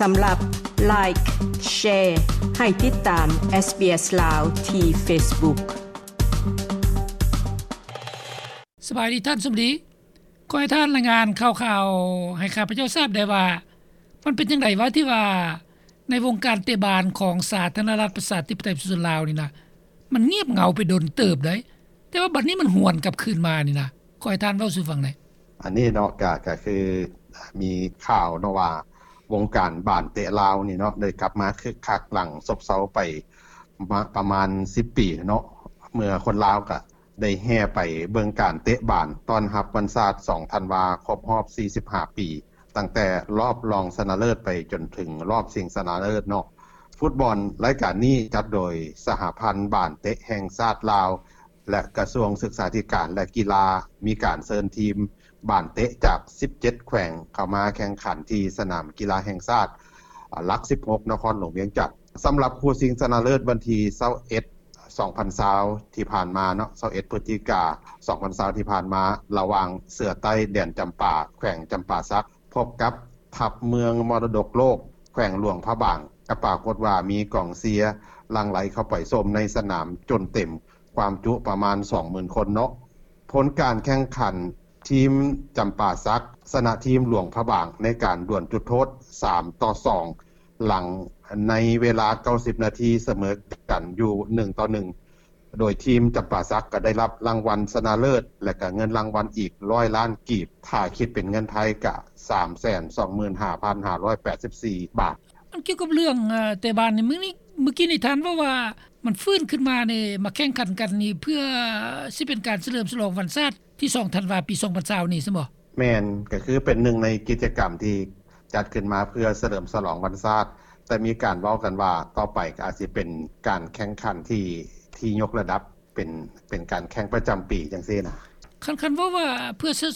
ສຳລັບ Like, Share ໃຫ້ຕິດຕາມ SBS ລາວ ທີ່ Facebook. ສະບາຍດີທ່ານສົມດີ. ຂໍໃຫ້ທ່ານລາຍງານຂ່າວໆໃຫ້ຂ້າພະເຈົ້າຊາບໄດ້ວ່າ ມັນເປັນຈັ່ງໃດວະ ທີ່ວ່າໃນວົງການເຕະບານຂອງສາທາລະນະລັດປະຊາທິປະໄຕປະຊາຊົນລາວນີ້ນະ ມັນງຽບເຫງົາໄປດົນເຕີບໃດ໋ ແຕ່ວ່າບັດນີ້ມັນຫວນກັບຄືນມານີ້ນະ ຂໍໃຫ້ທ່ານເວົ້າສູ່ຟັງແດ່. ອັນນີ້ເນາະ ກະ ກະຄືມີຂ່າວເນາະວ່າ ວົງການບານເຕະລາວນີ້ເນາະ ໄດ້ກັບມາຄຶກຄັກຫຼັງຊົບເຊົາໄປ ປະມານສິບປີເນາະ ເມື່ອຄົນລາວກະ ໄດ້ແຫ່ໄປເບິ່ງການເຕະບານຕ້ອນຮັບວັນຊາດສອງທັນວາ ຄົບຮອບສີ່ສິບຫ້າປີ ຕັ້ງແຕ່ລອບລອງຊະນະເລີດໄປຈົນເຖິງລອບຊິງຊະນະເລີດເນາະ. ຟຸດບອນລາຍການນີ້ຈັດໂດຍສະຫະພັນບານເຕະແຫ່ງຊາດລາວ ແລະ ກະຊວງສຶກສາທິການ ແລະ ກິລາ ມີການເຊີນທີມບານເຕະຈາກສິບເຈັດແຂວງເຂົ້າມາແຂ່ງຂັນທີ່ສະໜາມກິລາແຫ່ງຊາດ ຫຼັກສິບຫົກ ນະຄອນຫຼວງວຽງຈັນ. ສຳລັບຄູ່ຊິງຊະນະເລີດວັນທີຊາວເອັດ ສອງພັນຊາວທີ່ຜ່ານມາເນາະ ຊາວເອັດ ພຶສຈິກາ ສອງພັນຊາວທີ່ຜ່ານມາ ລະຫວ່າງເສືອໃຕ້ແດນຈຳປາ ແຂວງຈຳປາສັກ ພົບກັບທັບເມືອງມໍລະດົກໂລກ ແຂວງຫຼວງພະບາງ ກໍປາກົດວ່າມີກອງເຊຍຫຼັ່ງໄຫຼເຂົ້າໄປຊົມໃນສະໜາມຈົນເຕັມ ຄວາມຈຸປະມານສອງໝື່ນຄົນເນາະ. ຜົນການແຂ່ງຂັນ ທີມຈຳປາສັກຊະນະທີມຫຼວງພະບາງໃນການດວນຈຸດໂທດສາມຕໍ່ສອງ ຫຼັງໃນເວລາເກົ້າສິບນາທີສະເໝີກັນຢູ່ໜຶ່ງຕໍ່ໜຶ່ງ ໂດຍທີມຈຳປາສັກກໍໄດ້ຮັບລາງວັນຊະນະເລີດ ແລະ ກໍເງິນລາງວັນອີກຮ້ອຍລ້ານກີບ ຖ້າຄິດເປັນເງິນໄທກໍສາມແສນສອງໝື່ນຫ້າພັນຫ້າຮ້ອຍແປດສິບສີ່ບາດ. ອັນກ່ຽວກັບເລື່ອງ ເອີ ເຕະບານນີ້ ມື້ນີ້ ມື້ກີ້ນີ້ທ່ານເວົ້າວ່າ ມັນຟື້ນຂຶ້ນມານີ້ ມາແຂ່ງຂັນກັນນີ້ ເພື່ອຊິເປັນການສະເຫຼີມສະຫຼອງວັນຊາດທີສອງທັນວາ ປີສອງພັນຊາວນີ້ຊັ້ນບໍ? ແມ່ນ, ກໍຄືເປັນໜຶ່ງໃນກິດຈະກຳທີ່ຈັດຂຶ້ນມາເພື່ອສະເຫຼີມສະຫຼອງວັນຊາດ, ແຕ່ມີການເວົ້າກັນວ່າຕໍ່ໄປກໍອາດຊິເປັນການແຂ່ງຂັນທີ່ ທີ່ຍົກລະດັບ ເປັນ ເປັນການແຂ່ງປະຈຳປີຈັ່ງຊີ້ນະ. ຄັນ ຄັນເວົ້າວ່າເພື່ອສະ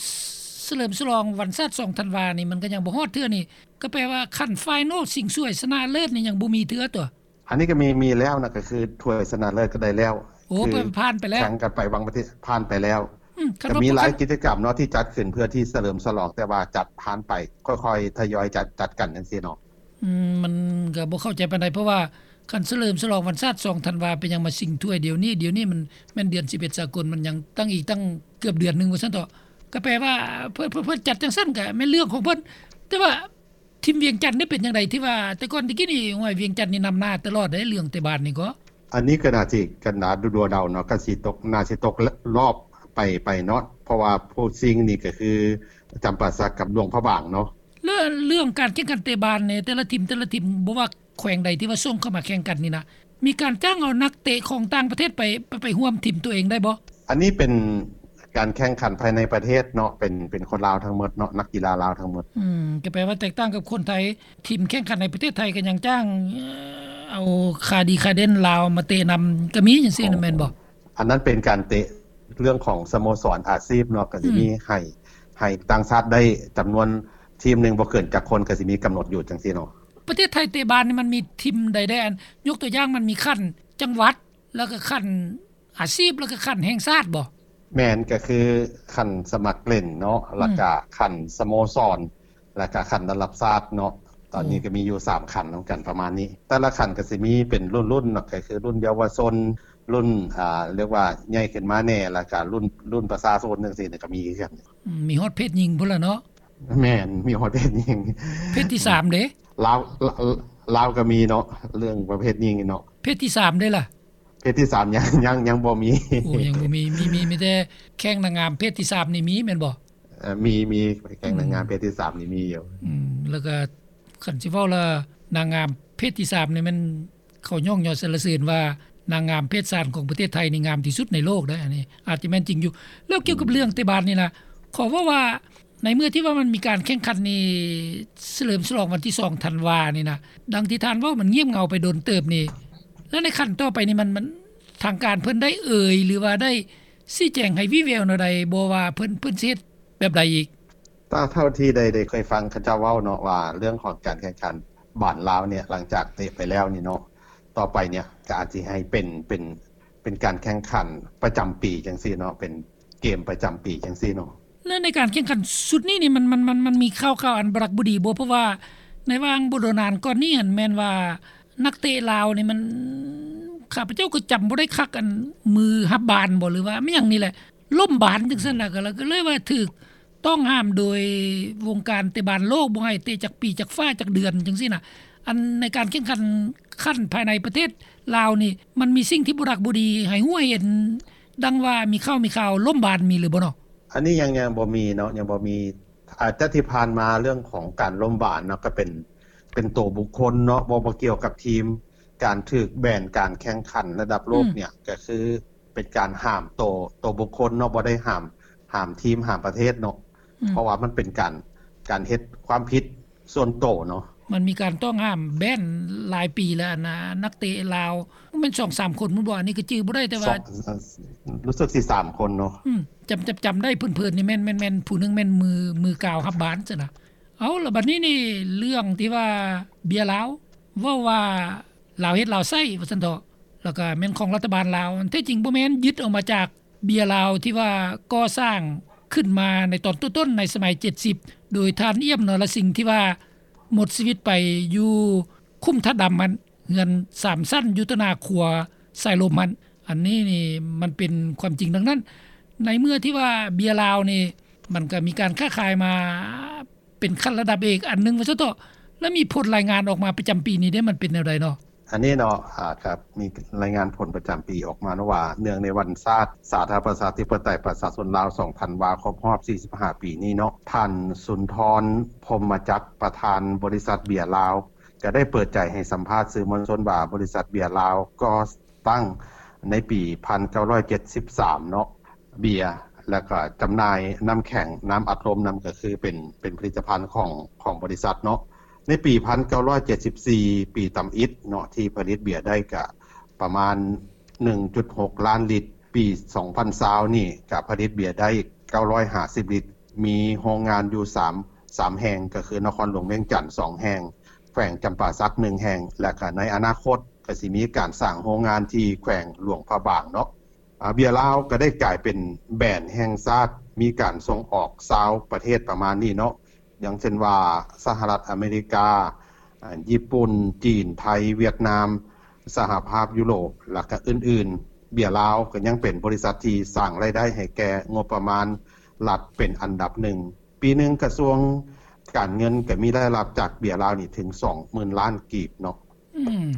ສະເຫຼີມສະຫຼອງວັນຊາດສອງທັນວານີ້ ມັນກໍຍັງບໍ່ຮອດເທື່ອນີ້ ກໍແປວ່າຂັ້ນໄຟນອລຊິງຖ້ວຍຊະນະເລີດນີ້ຍັງບໍ່ມີເທື່ອຕົວະ? ອັນນີ້ກໍມີ ມີແລ້ວນະ ກໍຄືຖ້ວຍຊະນະເລີດກໍໄດ້ແລ້ວ. ໂອ້ ຄືເພິ່ນຜ່ານໄປແລ້ວ ແຂ່ງກັນໄປຫວ່າງປະເທດ ຜ່ານໄປແລ້ວ. ອືມ ກໍມີຫຼາຍກິດຈະກຳເນາະທີ່ຈັດຂຶ້ນເພື່ອທີ່ສະເຫຼີມສະຫຼອງ ແຕ່ວ່າຈັດຜ່ານໄປ ຄ່ອຍໆທະຍອຍຈັດ ຈັດກັນຈັ່ງຊີ້ເນາະ. ອືມ ມັນກໍບໍ່ເຂົ້າໃຈປານໃດ ເພາະວ່າຄັນສະເຫຼີມສະຫຼອງວັນຊາດສອງທັນວາ ເປັນຫຍັງມາຊິງຖ້ວຍດຽວນີ້? ດຽວນີ້ມັນແມ່ນເດືອນສິບເອັດສາກົນ ມັນຍັງຕັ້ງອີກຕັ້ງເກືອບເດືອນໜຶ່ງວ່າຊັ້ນເຖາະ. ກໍແປວ່າເພິ່ນ ເພິ່ນ ເພິ່ນຈັດຈັ່ງຊັ້ນກໍແມ່ນເລື່ອງຂອງເພິ່ນ ແຕ່ວ່າ ທີມວຽງຈັນນີ້ເປັນຈັ່ງໃດ ທີ່ວ່າແຕ່ກ່ອນແຕ່ກີ້ນີ້ ຫ້ວຍ ວຽງຈັນນີ້ນຳໜ້າຕະຫຼອດເດ້ ເລື່ອງເຕະບານນີ້ກໍ? ອັນນີ້ກໍໜ້າຊິກັນດາດົວໆເດົາເນາະ ກໍຊິຕົກ ໜ້າຊິຕົກລອບໄປ ໄປເນາະ ເພາະວ່າຄູ່ຊິງນີ້ກໍຄືຈຳປາສັກກັບຫຼວງພະບາງເນາະ. ແລ້ວເລື່ອງການແຂ່ງຂັນເຕະບານນີ້ ແຕ່ລະທີມ ແຕ່ລະທີມ ບໍ່ວ່າແຂວງໃດທີ່ວ່າສົ່ງເຂົ້າມາແຂ່ງກັນນີ້ນະ ມີການຈ້າງເອົານັກເຕະຂອງຕ່າງປະເທດໄປ ໄປ ໄປຮ່ວມທີມຕົວເອງໄດ້ບໍ່? ອັນນີ້ເປັນການແຂ່ງຂັນພາຍໃນປະເທດເນາະ ເປັນ ເປັນຄົນລາວທັງໝົດເນາະ ນັກກິລາລາວທັງໝົດ. ອືມ ກໍແປວ່າແຕກຕ່າງກັບຄົນໄທ ທີມແຂ່ງຂັນໃນປະເທດໄທກໍຍັງຈ້າງ ເອີ ເອົາຂາດີຂາເດັ່ນລາວມາເຕະນຳ ກໍມີຈັ່ງຊີ້ນະ ແມ່ນບໍ່? ອັນນັ້ນເປັນການເຕະເລື່ອງຂອງສະໂມສອນອາຊີບເນາະ ກໍຊິມີ ອືມ ໃຫ້ ໃຫ້ຕ່າງຊາດໄດ້ຈຳນວນທີມໜຶ່ງບໍ່ເກີນຈັກຄົນ ກໍຊິມີກຳນົດຢູ່ຈັ່ງຊີ້ເນາະ. ປະເທດໄທເຕະບານນີ້ມັນມີທີມໃດແດ່? ອັນ ຍົກຕົວຢ່າງ ມັນມີຂັ້ນຈັງຫວັດ ແລ້ວກໍຂັ້ນອາຊີບ ແລ້ວກໍຂັ້ນແຫ່ງຊາດບໍ່? ແມ່ນ ກໍຄືຂັ້ນສະໝັກຫຼິ້ນເນາະ ອືມ ແລ້ວກໍຂັ້ນສະໂມສອນ ແລ້ວກໍຂັ້ນລະດັບຊາດເນາະ. ຕອນນີ້ ໂອ້ ກໍມີຢູ່ສາມຂັ້ນນຳກັນປະມານນີ້ ແຕ່ລະຂັ້ນກໍຊິມີເປັນລຸ້ນໆເນາະ ກໍຄືລຸ້ນເຍົາວະຊົນ ລຸ້ນ ອ່າ ຮຽກວ່າໃຫຍ່ຂຶ້ນມາແດ່ ແລ້ວກໍລຸ້ນ ລຸ້ນປະຊາຊົນຈັ່ງຊີ້ກໍມີຄືກັນ. ອືມ ມີຮອດເພດຍິງພຸ້ນລະເນາະ. ແມ່ນ ມີຮອດເພດຍິງ. ເພດທີສາມເດ້? ລາວ ລາວ ລາວກໍມີເນາະ ເລື່ອງປະເພດຍິງເນາະ. ເພດທີສາມເດ້ລະ? ເພດທີສາມຍັງ ຍັງ ຍັງບໍ່ມີ. ໂອ້ ຍັງບໍ່ມີ ມີ ມີ ມີແຕ່ແຂ່ງນາງງາມເພດທີສາມນີ້ມີແມ່ນບໍ່? ເອີ ມີ ມີ ແຂ່ງນາງງາມເພດທີສາມນີ້ມີຢູ່. ອືມ ແລ້ວກໍຄັນຊິເວົ້າລະ ນາງງາມເພດທີສາມນີ້ແມ່ນ ເຂົາຍ້ອງຍໍສັນລະເສີນວ່າ ນາງງາມເພດສາມຂອງປະເທດໄທນີ້ງາມທີ່ສຸດໃນໂລກເດ້ ອັນນີ້ອາດຈະແມ່ນຈິງຢູ່. ແລ້ວກ່ຽວກັບເລື່ອງເຕະບານນີ້ນະ ຂໍເວົ້າວ່າ ໃນເມື່ອທີ່ວ່າມັນມີການແຂ່ງຂັນນີ້ ສະເຫຼີມສະຫຼອງວັນທີສອງທັນວານີ້ນະ ດັ່ງທີ່ທ່ານເວົ້າ ມັນງຽບເຫງົາໄປດົນເຕີບນີ້ ແລ້ວໃນຂັ້ນຕໍ່ໄປນີ້ ມັນ ມັນ ທາງການເພິ່ນໄດ້ເອີ່ຍ ຫຼືວ່າໄດ້ຊີ້ແຈງໃຫ້ວີ່ແວວແນວໃດບໍ່ວ່າເພິ່ນ ເພິ່ນຊິເຮັດແບບໃດອີກ? ຕາມເທົ່າທີ່ໄດ້ ໄດ້ເຄີຍຟັງເຂົາເຈົ້າເວົ້າເນາະ ວ່າເລື່ອງຂອງການແຂ່ງຂັນບານລາວເນຍ ຫຼັງຈາກເຕະໄປແລ້ວນີ້ເນາະ ຕໍ່ໄປເນຍກໍອາດຊິໃຫ້ເປັນ ເປັນ ເປັນການແຂ່ງຂັນປະຈຳປີຈັ່ງຊີ້ເນາະ ເປັນເກມປະຈຳປີຈັ່ງຊີ້ເນາະ. ແລ້ວໃນການແຂ່ງຂັນຊຸດນີ້ນີ້ ມັນ ມັນ ມັນ ມັນມີຂ່າວ ຂ່າວອັນບໍ່ຮັກບໍ່ດີບໍ່? ເພາະວ່າ ໃນຫວ່າງບໍ່ດົນນານກ່ອນນີ້ຫັ້ນ ແມ່ນວ່ານັກເຕະລາວນີ້ມັນ ຂ້າພະເຈົ້າກໍຈຳບໍ່ໄດ້ຄັກ ອັນ ມືຮັບບານບໍ່ ຫຼືວ່າແມ່ນຫຍັງນີ້ແຫຼະ ລົ້ມບານຈັ່ງຊັ້ນນະ ກໍເລີຍວ່າຖືກຕ້ອງຫ້າມໂດຍວົງການເຕະບານໂລກ ບໍ່ໃຫ້ເຕະຈັກປີ ຈັກຟ້າ ຈັກເດືອນຈັ່ງຊີ້ນະ. ອັນໃນການແຂ່ງຂັນຂັ້ນພາຍໃນປະເທດລາວນີ້ ມັນມີສິ່ງທີ່ບໍ່ດັກບໍ່ດີໃຫ້ຮູ້ໃຫ້ເຫັນ ດັ່ງວ່າມີຂ່າວມີຂ່າວລົ້ມບານ ມີຫຼືບໍ່ເນາະ? ອັນນີ້ຍັງ ຍັງບໍ່ມີເນາະ ຍັງບໍ່ມີ. ອາດຈະທີ່ຜ່ານມາເລື່ອງຂອງການລົ້ມບານເນາະ ກໍເປັນ ເປັນໂຕບຸກຄົນເນາະ ບໍ່ ບໍ່ກ່ຽວກັບທີມ. ການຖືກແບນການແຂ່ງຂັນລະດັບໂລກ ອືມ ເນຍ ກໍຄືເປັນການຫ້າມໂຕ ໂຕບຸກຄົນເນາະ ບໍ່ໄດ້ຫ້າມ ຫ້າມທີມ ຫ້າມປະເທດເນາະ ອືມ ເພາະວ່າມັນເປັນການ ການເຮັດຄວາມຜິດສ່ວນໂຕເນາະ. ມັນມີການຕ້ອງຫ້າມແບນຫຼາຍປີແລ້ວ ອັນນ່າ ນັກເຕະລາວ ແມ່ນສອງສາມຄົນພຸ້ນບໍ່ ອັນນີ້ກໍຈື່ບໍ່ໄດ້ ແຕ່ວ່າ ສອງ ເອີ ຮູ້ສຶກຊິສາມຄົນເນາະ ອືມ ຈຳ ຈຳ ຈຳໄດ້ເພີນໆນີ້ ແມ່ນ ແມ່ນ ແມ່ນຜູ້ໜຶ່ງແມ່ນມື ມືກາວຮັບບານຊັ້ນນະ. ເອົາ ລະບັດນີ້ນີ້ ເລື່ອງທີ່ວ່າເບຍລາວ ເວົ້າວ່າລາວເຮັດລາວໃຊ້ວ່າຊັ້ນເຖາະ ແລ້ວກໍແມ່ນຂອງລັດຖະບານລາວ ອັນແທ້ຈິງບໍ່ແມ່ນ ຍຶດເອົາມາຈາກເບຍລາວທີ່ວ່າກໍ່ສ້າງຂຶ້ນມາໃນຕອນຕົ້ນໆ ໃນສະໄໝເຈັດສິບ ໂດຍທ່ານ ອຽມ ນໍລະສິງ ທີ່ວ່າໝົດຊີວິດໄປຢູ່ຂຸມທາດດຳຫັ້ນ ເຮືອນສາມຊັ້ນຢູ່ຕໍ່ໜ້າຂົວສາຍລົມຫັ້ນ. ອັນນີ້ນີ້ມັນເປັນຄວາມຈິງດັ່ງນັ້ນ. ໃນເມື່ອທີ່ວ່າເບຍລາວນີ້ ມັນກໍມີການຄ້າຂາຍມາ ເປັນຂັ້ນລະດັບເອກອັນໜຶ່ງວ່າຊັ້ນເຖາະ ແລ້ວມີຜົນລາຍງານອອກມາປະຈຳປີນີ້ເດ້ ມັນເປັນແນວໃດເນາະ? ອັນນີ້ເນາະ ອາ ກໍມີລາຍງານຜົນປະຈຳປີອອກມາເນາະວ່າ ເນື່ອງໃນວັນຊາດສາທາລະນະລັດປະຊາທິປະໄຕປະຊາຊົນລາວ ສອງທັນວາ ຄົບຮອບສີ່ສິບຫ້າປີນີ້ເນາະ ທ່ານ ສຸນທອນ ພົມມະຈັກ ປະທານບໍລິສັດເບຍລາວ ກໍໄດ້ເປີດໃຈໃຫ້ສຳພາດສື່ມວນຊົນວ່າ ບໍລິສັດເບຍລາວກໍ ຕັ້ງໃນປີພັນເກົ້າຮ້ອຍເຈັດສິບສາມເນາະ ເບຍ ແລ້ວກໍຈຳໜ່າຍນ້ຳແຂງ ນ້ຳອັດລົມນຳ ກໍຄືເປັນ ເປັນຜະລິດຕະພັນຂອງ ຂອງບໍລິສັດເນາະ. ໃນປີພັນເກົ້າຮ້ອຍເຈັດສິບສີ່ ປີຕຳອິດເນາະ ທີ່ຜະລິດເບຍໄດ້ກະປະມານໜຶ່ງຈຸດຫົກລ້ານລິດ. ປີສອງພັນຊາວນີ້ກະຜະລິດເບຍໄດ້ເກົ້າຮ້ອຍຫ້າສິບລິດ ມີໂຮງງານຢູ່ສາມ ສາມແຫ່ງ ກໍຄືນະຄອນຫຼວງວຽງຈັນສອງແຫ່ງ ແຂວງຈຳປາສັກໜຶ່ງແຫ່ງ ແລະກະໃນອະນາຄົດ ກໍຊິມີການສ້າງໂຮງງານທີ່ແຂວງຫຼວງພະບາງເນາະ. ອາ ເບຍລາວກໍໄດ້ກາຍເປັນແບຣນແຫ່ງຊາດ ມີການສົ່ງອອກຊາວປະເທດປະມານນີ້ເນາະ ຢ່າງເຊັ່ນວ່າ ສະຫະລັດອາເມລິກາ, ອາ ຍີ່ປຸ່ນ, ຈີນ, ໄທ, ຫວຽດນາມ, ສະຫະພາບຢູໂຣບ ແລະກະອື່ນໆ. ເບຍລາວກໍຍັງເປັນບໍລິສັດທີ່ສ້າງລາຍໄດ້ໃຫ້ແກ່ງົບປະມານລັດເປັນອັນດັບໜຶ່ງ. ປີໜຶ່ງກະຊວງການເງິນກໍມີລາຍຮັບຈາກເບຍລາວນີ້ເຖິງສອງໝື່ນລ້ານກີບເນາະ. ອືມ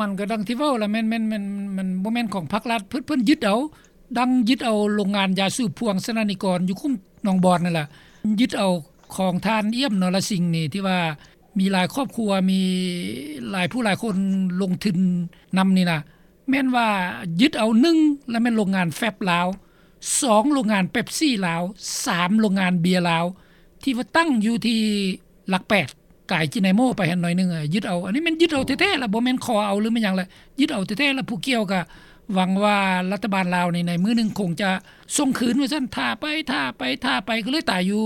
ມັນກໍດັ່ງທີ່ເວົ້າລະ ແມ່ນ ແມ່ນ ແມ່ນ ມັນບໍ່ແມ່ນຂອງພາກລັດ ເພິ່ນ ເພິ່ນຍຶດເອົາ ດັ່ງຍຶດເອົາໂລງງານຢາສູບພວງສະໜານິກອນຢູ່ຄຸ້ມໜອງບອນນັ້ນລະ ຍຶດເອົາຂອງທ່ານ ອຽມ ນໍລະສິງ ນີ້ ທີ່ວ່າມີຫຼາຍຄອບຄົວ ມີຫຼາຍຜູ້ຫຼາຍຄົນລົງທຶນນຳນີ້ນະ. ແມ່ນວ່າຍຶດເອົາ ໜຶ່ງ ລະແມ່ນໂລງງານແຟັບລາວ, ສອງ ໂລງງານເປັບຊີລາວ, ສາມ ໂລງງານເບຍລາວ ທີ່ວ່າຕັ້ງຢູ່ທີ່ຫຼັກແປດ ກາຍຈີນາໂມໄປຫັ້ນໜ້ອຍໜຶ່ງ ຍຶດເອົາ. ອັນນີ້ແມ່ນຍຶດເອົາແທ້ໆລະ ບໍ່ແມ່ນຂໍເອົາ ຫຼືແມ່ນຫຍັງລະ ຍຶດເອົາແທ້ໆລະ. ຜູ້ກ່ຽວກະຫວັງວ່າລັດຖະບານລາວນີ້ໃນມື້ໜຶ່ງຄົງຈະສົ່ງຄືນວ່າຊັ້ນ ຖ້າໄປ ຖ້າໄປ ຖ້າໄປ ກໍເລີຍຕາຍຢູ່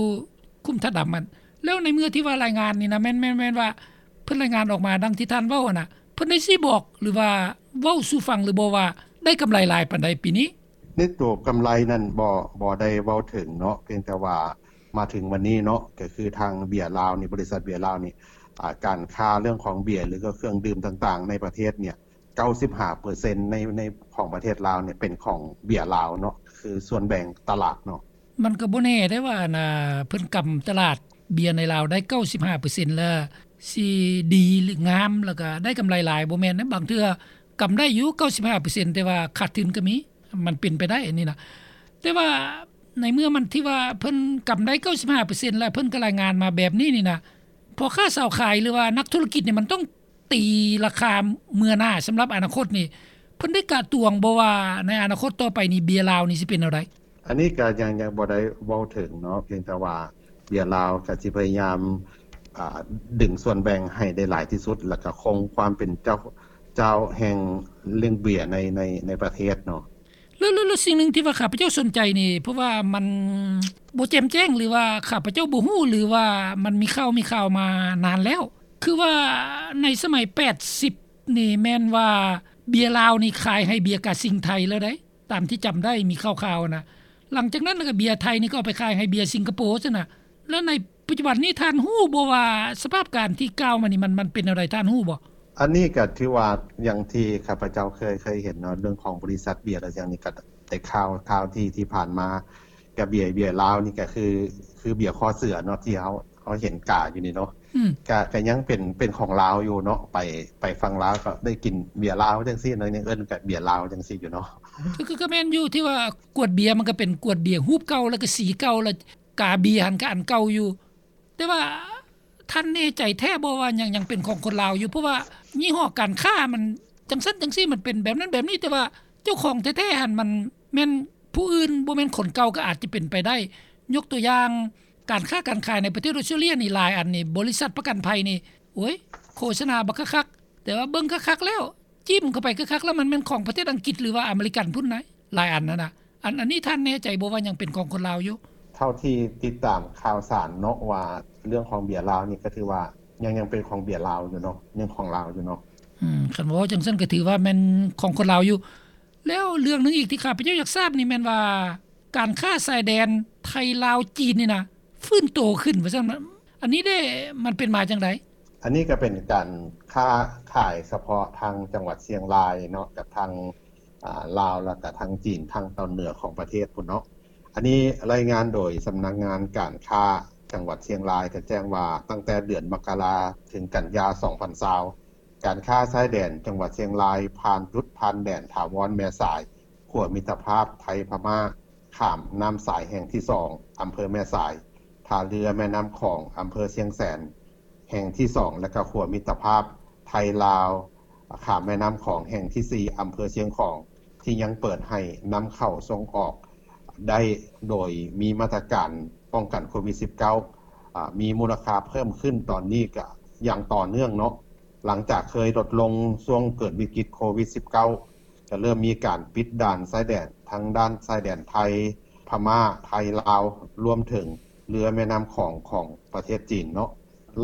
ຂຸມທາດດຳຫັ້ນ. ແລ້ວໃນເມື່ອທີ່ວ່າລາຍງານນີ້ນະ ແມ່ນ ແມ່ນ ແມ່ນວ່າເພິ່ນລາຍງານອອກມາດັ່ງທີ່ທ່ານເວົ້າຫັ້ນນະ ເພິ່ນໄດ້ຊີ້ບອກ ຫຼືວ່າເວົ້າສູ່ຟັງຫຼືບໍ່ວ່າໄດ້ກຳໄລຫຼາຍປານໃດປີນີ້? ໃນໂຕກຳໄລນັ້ນບໍ່ ບໍ່ໄດ້ເວົ້າເຖິງເນາະ ພຽງແຕ່ວ່າມາເຖິງວັນນີ້ເນາະ ກໍຄືທາງເບຍລາວນີ້ ບໍລິສັດເບຍລາວນີ້ ອາ ການຄ້າເລື່ອງຂອງເບຍ ຫຼືກໍເຄື່ອງດື່ມຕ່າງໆໃນປະເທດເນຍ ເກົ້າສິບຫ້າເປີເຊັນໃນ ໃນຂອງປະເທດລາວເນຍເປັນຂອງເບຍລາວເນາະ ຄືສ່ວນແບ່ງຕະຫຼາດເນາະ. ມັນກໍບໍ່ແນ່ເດ້ວ່າ ອັນ ອາ ເພິ່ນກຳຕະຫຼາດເບຍໃນລາວໄດ້ເກົ້າສິບຫ້າເປີເຊັນແລ້ວ ຊິດີ ຫຼື ງາມ ແລ້ວກໍໄດ້ກຳໄລຫຼາຍ ບໍ່ແມ່ນເດ້. ບາງເທື່ອກຳໄດ້ຢູ່ເກົ້າສິບຫ້າເປີເຊັນ ແຕ່ວ່າຂາດທຶນກໍມີ ມັນເປັນໄປໄດ້ອັນນີ້ນະ. ແຕ່ວ່າໃນເມື່ອມັນທີ່ວ່າເພິ່ນກຳໄດ້ເກົ້າສິບຫ້າເປີເຊັນ ແລ້ວເພິ່ນກໍລາຍງານມາແບບນີ້ນີ້ນະ ພໍ່ຄ້າຊາວຂາຍ ຫຼືວ່ານັກທຸລະກິດນີ້ ມັນຕ້ອງ ຕີລາຄາເມື່ອໜ້າສຳລັບອະນາຄົດນີ້ ເພິ່ນໄດ້ກະຕວງບໍ່ວ່າໃນອະນາຄົດຕໍ່ໄປນີ້ເບຍລາວນີ້ຊິເປັນແນວໃດ? ອັນນີ້ກະຍັງ ຍັງບໍ່ໄດ້ເວົ້າເຖິງເນາະ ພຽງແຕ່ວ່າເບຍລາວກະຊິພະຍາຍາມ ອາ ດຶງສ່ວນແບ່ງໃຫ້ໄດ້ຫຼາຍທີ່ສຸດ ແລ້ວກະຄົງຄວາມເປັນເຈົ້າ ເຈົ້າແຫ່ງເລື່ອງເບຍໃນ ໃນ ໃນປະເທດເນາະ. ແລ້ວ ແລ້ວ ແລ້ວສິ່ງໜຶ່ງທີ່ວ່າຂ້າພະເຈົ້າສົນໃຈນີ້ ເພາະວ່າມັນບໍ່ແຈ່ມແຈ້ງ ຫຼືວ່າຂ້າພະເຈົ້າບໍ່ຮູ້ ຫຼືວ່າມັນມີຂ່າວ ມີຂ່າວມານານແລ້ວ ຄືວ່າໃນສະໄໝແປດສິບນີ້ແມ່ນວ່າເບຍລາວນີ້ຂາຍໃຫ້ເບຍກາຊິງໄທແລ້ວໃດ໋ ຕາມທີ່ຈຳໄດ້ມີຂ່າວໆນະ. ຫຼັງຈາກນັ້ນລະກະເບຍໄທນີ້ກໍເອົາໄປຂາຍໃຫ້ເບຍສິງກະໂປຊັ້ນນະ. ແລ້ວໃນ ປັດຈຸບັນນີ້ທ່ານຮູ້ບໍ່ວ່າສະພາບການທີ່ກ່າວມານີ້ ມັນ ມັນເປັນແນວໃດ ທ່ານຮູ້ບໍ່? ອັນນີ້ກໍຖືວ່າ ຢ່າງທີ່ຂ້າພະເຈົ້າເຄີຍ ເຄີຍເຫັນເນາະ ເລື່ອງຂອງບໍລິສັດເບຍ ແລະ ຫຍັງນີ້ ກໍໄດ້ຂ່າວ ຂ່າວທີ່ ທີ່ຜ່ານມາ ກະເບຍ ເບຍລາວນີ້ກະຄື ຄືເບຍຄໍເສືອເນາະ ທີ່ເຮົາ ເຮົາເຫັນກາຢູ່ນີ້ເນາະ ອືມ ກະ ກະຍັງເປັນ ເປັນຂອງລາວຢູ່ເນາະ ໄປ ໄປຝັ່ງລາວກໍໄດ້ກິນເບຍລາວຈັ່ງຊີ້ເນາະ ຍັງເອີ້ນກະເບຍລາວຈັ່ງຊີ້ຢູ່ເນາະ. ຄື ຄື ຄືແມ່ນຢູ່ທີ່ວ່າກວດເບຍ ມັນກໍເປັນກວດເບຍຮູບເກົ່າ ແລ້ວກໍສີເກົ່າ ແລ້ວກາເບຍຫັ້ນກໍອັນເກົ່າຢູ່ ແຕ່ວ່າທ່ານແນ່ໃຈແທ້ບໍ່ວ່າຍັງ ຍັງເປັນຂອງຄົນລາວຢູ່? ເພາະວ່າຍີ່ຫໍ້ການຄ້າມັນຈັ່ງຊັ້ນຈັ່ງຊີ້ ມັນເປັນແບບນັ້ນແບບນີ້ ແຕ່ວ່າເຈົ້າຂອງແທ້ໆຫັ້ນມັນແມ່ນຜູ້ອື່ນ ບໍ່ແມ່ນຄົນເກົ່າກໍອາດຈະເປັນໄປໄດ້. ຍົກຕົວຢ່າງ ການຄ້າການຂາຍໃນປະເທດອອສເຕຣເລຍນີ້ ຫຼາຍອັນນີ້ ບໍລິສັດປະກັນໄພນີ້ ໂອ້ຍ ໂຄສະນາບັກຄັກໆ ແຕ່ວ່າເບິ່ງຄັກໆແລ້ວ ຈິ້ມເຂົ້າໄປຄັກໆແລ້ວ ມັນແມ່ນຂອງປະເທດອັງກິດ ຫຼືວ່າອາເມລິກັນພຸ້ນນະ ຫຼາຍອັນຫັ້ນນະ. ອັນ ອັນນີ້ທ່ານແນ່ໃຈບໍ່ວ່າຍັງເປັນຂອງຄົນລາວຢູ່? ເທົ່າທີ່ຕິດຕາມຂ່າວສານເນາະ ວ່າເລື່ອງຂອງເບຍລາວນີ້ ກໍຖືວ່າຍັງ ຍັງເປັນຂອງເບຍລາວຢູ່ເນາະ ຍັງຂອງລາວຢູ່ເນາະ. ອືມ ຄັນເວົ້າຈັ່ງຊັ້ນກໍຖືວ່າແມ່ນຂອງຄົນລາວຢູ່. ແລ້ວເລື່ອງໜຶ່ງອີກທີ່ຂ້າພະເຈົ້າຢາກຊາບນີ້ແມ່ນວ່າ ການຄ້າຊາຍແດນໄທ ລາວ ຈີນນີ້ນະ ຟື້ນໂຕຂຶ້ນວ່າຊັ້ນ ອັນນີ້ເດ້ ມັນເປັນມາຈັ່ງໃດ? ອັນນີ້ກໍເປັນການຄ້າຂາຍສະເພາະທາງຈັງຫວັດຊຽງລາຍເນາະ ກັບທາງ ອາ ລາວ ແລ້ວກໍທາງຈີນ ທາງຕອນເໜືອຂອງປະເທດພຸ້ນເນາະ. ອັນນີ້ລາຍງານໂດຍສຳນັກງານການຄ້າຈັງຫວັດຊຽງລາຍ ກໍແຈ້ງວ່າ ຕັ້ງແຕ່ເດືອນມະກະລາເຖິງກັນຍາ ສອງພັນຊາວ ການຄ້າຊາຍແດນຈັງຫວັດຊຽງລາຍ ຜ່ານຈຸດຜ່ານແດນຖາວອນແມ່ສາຍ ຂົວມິດຕະພາບໄທພະມ້າ ຂ້າມນ້ຳສາຍແຫ່ງທີສອງ ອຳເພີແມ່ສາຍ, ທ່າເຮືອແມ່ນ້ຳຂອງ ອຳເພີຊຽງແສນ ແຫ່ງທີສອງ ແລະ ກະຂົວມິດຕະພາບໄທລາວ ຂ້າມແມ່ນ້ຳຂອງແຫ່ງທີສີ່ ອຳເພີຊຽງຂອງ ທີ່ຍັງເປີດໃຫ້ນຳເຂົ້າສົ່ງອອກໄດ້ ໂດຍມີມາດຕະການປ້ອງກັນໂຄວິດສິບເກົ້າ ອາ ມີມູນລະຄ່າເພີ່ມຂຶ້ນຕອນນີ້ກະຢ່າງຕໍ່ເນື່ອງເນາະ. ຫຼັງຈາກເຄີຍລົດລົງຊ່ວງເກີດວິກິດໂຄວິດສິບເກົ້າ ກະເລີ່ມມີການປິດດ່ານຊາຍແດນ ທັງດ່ານຊາຍແດນໄທ ພະມ້າ ໄທລາວ ລວມເຖິງເຮືອແມ່ນ້ຳຂອງ ຂອງປະເທດຈີນເນາະ.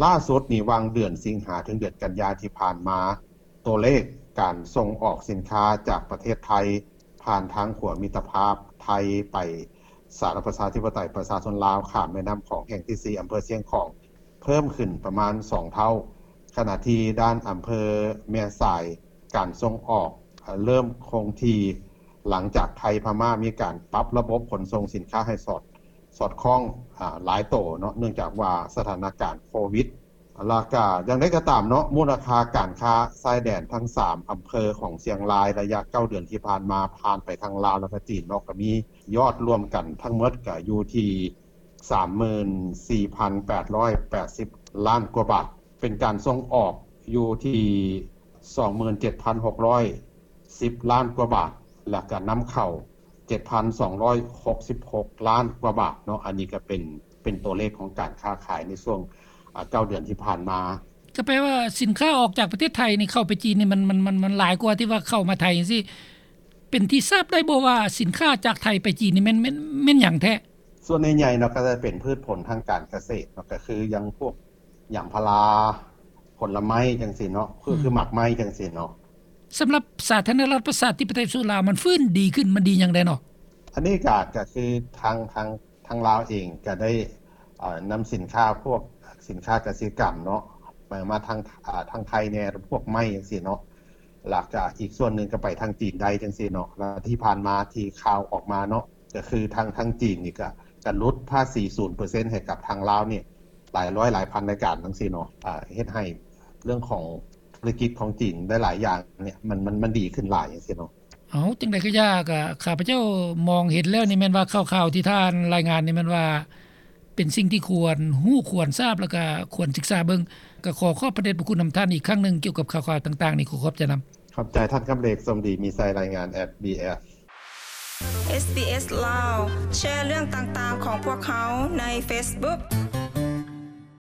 ລ່າສຸດນີ້ ຫວ່າງເດືອນສິງຫາເຖິງເດືອນກັນຍາທີ່ຜ່ານມາ ຕົວເລກການສົ່ງອອກສິນຄ້າຈາກປະເທດໄທ ຜ່ານທາງຂົວມິດຕະພາບໄທໄປສາທາລະນະລັດປະຊາທິປະໄຕປະຊາຊົນລາວ ຂ້າມແມ່ນ້ຳຂອງແຫ່ງທີສີ່ ອຳເພີຊຽງຂອງ ເພີ່ມຂຶ້ນປະມານສອງເທົ່າ, ຂະນະທີ່ດ່ານອຳເພີແມ່ສາຍ ການສົ່ງອອກເລີ່ມຄົງທີ່ ຫຼັງຈາກໄທພະມ້າມີການປັບລະບົບຂົນສົ່ງສິນຄ້າໃຫ້ສອດ ສອດຄ່ອງ ອາ ຫຼາຍໂຕເນາະ ເນື່ອງຈາກວ່າສະຖານະການໂຄວິດ. ແລ້ວກະຢ່າງໃດກໍຕາມເນາະ ມູນລະຄ່າການຄ້າຊາຍແດນທັງສາມອຳເພີຂອງຊຽງລາຍ ໄລຍະເກົ້າເດືອນທີ່ຜ່ານມາ ຜ່ານໄປທາງລາວ ແລ້ວກະຈີນເນາະ ກະມີຍອດລວມກັນທັງໝົດກະຢູ່ທີ່ ສາມໝື່ນສີ່ພັນແປດຮ້ອຍແປດສິບລ້ານກວ່າບາດ, ເປັນການສົ່ງອອກຢູ່ທີ່ ສອງໝື່ນເຈັດພັນຫົກຮ້ອຍສິບລ້ານກວ່າບາດ ແລ້ວກະນຳເຂົ້າ ເຈັດພັນສອງຮ້ອຍຫົກສິບຫົກລ້ານກວ່າບາດເນາະ. ອັນນີ້ກະເປັນ ເປັນຕົວເລກຂອງການຄ້າຂາຍໃນຊ່ວງ ອາ ເກົ້າເດືອນທີ່ຜ່ານມາ. ກໍແປວ່າສິນຄ້າອອກຈາກປະເທດໄທນີ້ ເຂົ້າໄປຈີນນີ້ ມັນ ມັນ ມັນ ມັນຫຼາຍກວ່າທີ່ວ່າເຂົ້າມາໄທຈັ່ງຊີ້. ເປັນທີ່ຊາບໄດ້ບໍ່ວ່າສິນຄ້າຈາກໄທໄປຈີນນີ້ແມ່ນ ແມ່ນ ແມ່ນຫຍັງແທ້? ສ່ວນໃຫຍ່ໆເນາະ ກໍຈະເປັນພືດຜົນທາງການກະເສດເນາະ ກໍຄືຢ່າງພວກຢາງພາລາ ຜົນລະໄມ້ຈັ່ງຊີ້ເນາະ ຄື ອືມ ຄືໝາກໄມ້ຈັ່ງຊີ້ເນາະ. ສຳລັບສາທາລະນະລັດປະຊາທິປະໄຕປະຊາຊົນລາວ ມັນຟື້ນດີຂຶ້ນ ມັນດີຫຍັງແດ່ເນາະ? ອັນນີ້ກໍ ກໍຄືທາງ ທາງ ທາງລາວເອງກໍໄດ້ ເອີ ນຳສິນຄ້າ ພວກສິນຄ້າກະສິກຳເນາະ ມາ ມາທາງ ອາ ທາງໄທແດ່ ພວກໄມ້ຈັ່ງຊີ້ເນາະ ແລ້ວກະອີກສ່ວນໜຶ່ງກໍໄປທາງຈີນໄດ້ຈັ່ງຊີ້ເນາະ. ແລ້ວທີ່ຜ່ານມາທີ່ຂ່າວອອກມາເນາະ ກໍຄືທາງ ທາງຈີນນີ້ກໍ ກໍຫຼຸດພາສີສູນເປີເຊັນໃຫ້ກັບທາງລາວນີ້ ຫຼາຍຮ້ອຍຫຼາຍພັນລາຍການຈັ່ງຊີ້ເນາະ ອາ ເຮັດໃຫ້ເລື່ອງຂອງທຸລະກິດຂອງຈີນຫຼາຍໆຢ່າງນີ້ ມັນ ມັນ ມັນດີຂຶ້ນຫຼາຍຈັ່ງຊີ້ເນາະ. ເອົາ ຈັ່ງໃດກໍຢ່າ ກະຂ້າພະເຈົ້າມອງເຫັນແລ້ວນີ້ແມ່ນວ່າ ຂ່າວໆທີ່ທ່ານລາຍງານນີ້ແມ່ນວ່າ ເປັນສິ່ງທີ່ຄວນຮູ້ຄວນຊາບ ແລ້ວກະຄວນສຶກສາເບິ່ງ. ກະຂໍຂອບພະເດດພະຄຸນນຳທ່ານອີກຄັ້ງໜຶ່ງ ກ່ຽວກັບຂ່າວໆຕ່າງໆນີ້ ຂໍຂອບໃຈນຳ. ຂອບໃຈທ່ານຄຳເລັກ ສົມດີ ມີໄຊ ລາຍງານ ເອສບີເອສ ເອສບີເອສ ລາວ ແຊເລື່ອງຕ່າງໆຂອງພວກເຮົາໃນເຟສບຸກ